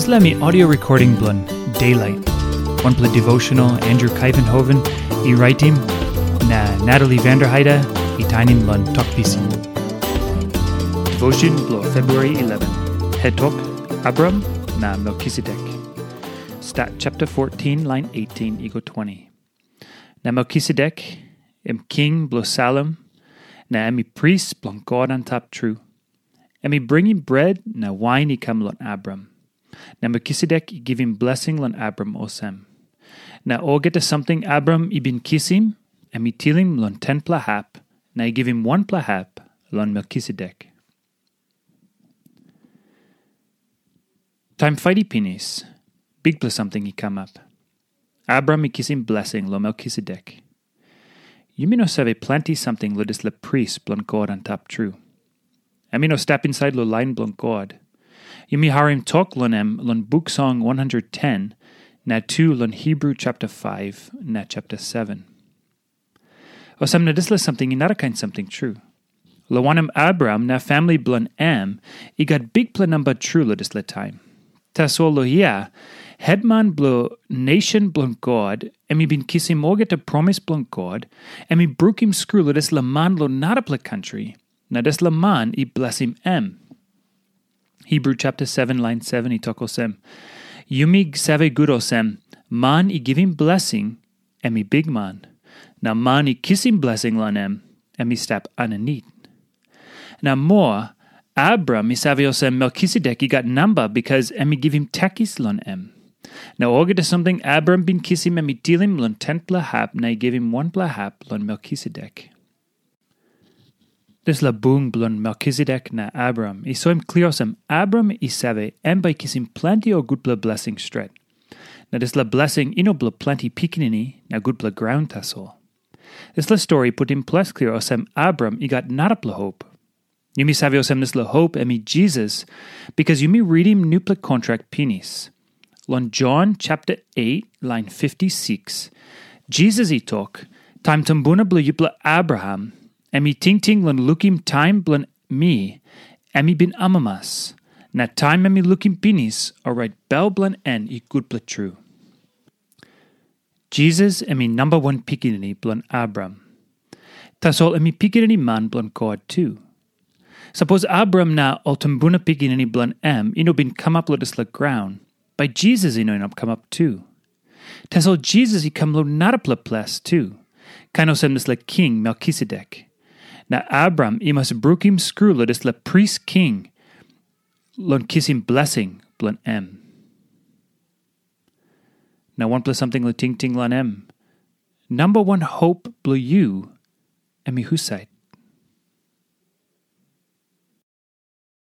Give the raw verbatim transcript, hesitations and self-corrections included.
Dispela mi audio recording bilong Daylight, wanpela devotional Andrew Kaivenhoven i raitim, na Natalie Vanderheide i tainim long Tok Pisin. Devotion bilong February eleven, het tok, Abram na Melkisedek. Stat chapter fourteen, line eighteen i go twenty. Na Melkisedek, em king bilong Salem, na em i pris bilong God antap tru. Em i bringim bret na wain i kam long Abram. Na Melkisedek i givim blesing long Abram olsem, na olgeta samting Abram i bin kisim, em i tilim long tenpela hap, na i givim wanpela hap long Melkisedek. Taim fait i pinis, bikpela samting i kamap. Abram i kisim blesing long Melkisedek. Yumi no save planti samting long dispela pris bilong God antap tru. Em i no stap insait long lain bilong God. Yumi harim tok long em long Buk Song one hundred ten, na tu long Hebru chapter five na chapter seven. Olsem na dispela samting i narakain samting tru. Long wanem, Abraham na famili bilong em i gat bikpela namba tru long dispela taim. Tasol long hia, hetman bilong nation bilong God, em i bin kisim olgeta promis bilong God, em i brukim skru long dispela man long narapela kantri, na dispela man i blesim em. Hebru chapter seven, lain seven i tok olsem, yumi save gut olsem, man i givim blesing, em i bikman, na man i kisim blesing long em, em i stap aninit. Na moa, Abram i save olsem Melkisedek i gat namba bikas em i givim takis long em. Na olgeta samting Abram bin kisim em i tilim long tenpela hap na i givim wanpela hap long Melkisedek. Dispela bung bilong Melkisedek na Abram i soim klia olsem Abram i save em bai i kisim planti ol gutpela blesing stret. Na dispela blesing i no bilong planti pikinini na gutpela graun tasol. Dispela stori i putim ples klia olsem Abram i gat narapela hop. Yumi save olsem dispela hop em i Jisas, bikas yumi ritim nupela kontrak pinis. Long Jon chapter eight, lain fifty-six, Jisas i tok, taim tumbuna bilong yupela Abraham, em i tingting long lukim taim bilong mi, em i bin amamas. Na taim em i lukim pinis, orait bel bilong en i gutpela tru. Jisas em i namba wan pikinini bilong Abraham. Tasol em i pikinini man bilong God tu. Sapos Abraham na ol tumbuna pikinini bilong em i no bin kamap long dispela graun, bai Jisas i no inap kamap tu. Tasol Jisas i kam long narapela ples tu, kain olsem dispela king Melkisedek. Na Abraham i mas brukim skru long dispela pris king long kisim blesing bilong em. Na wanpela samting long tingting long em. Namba wan hop bilong yu, em i husat?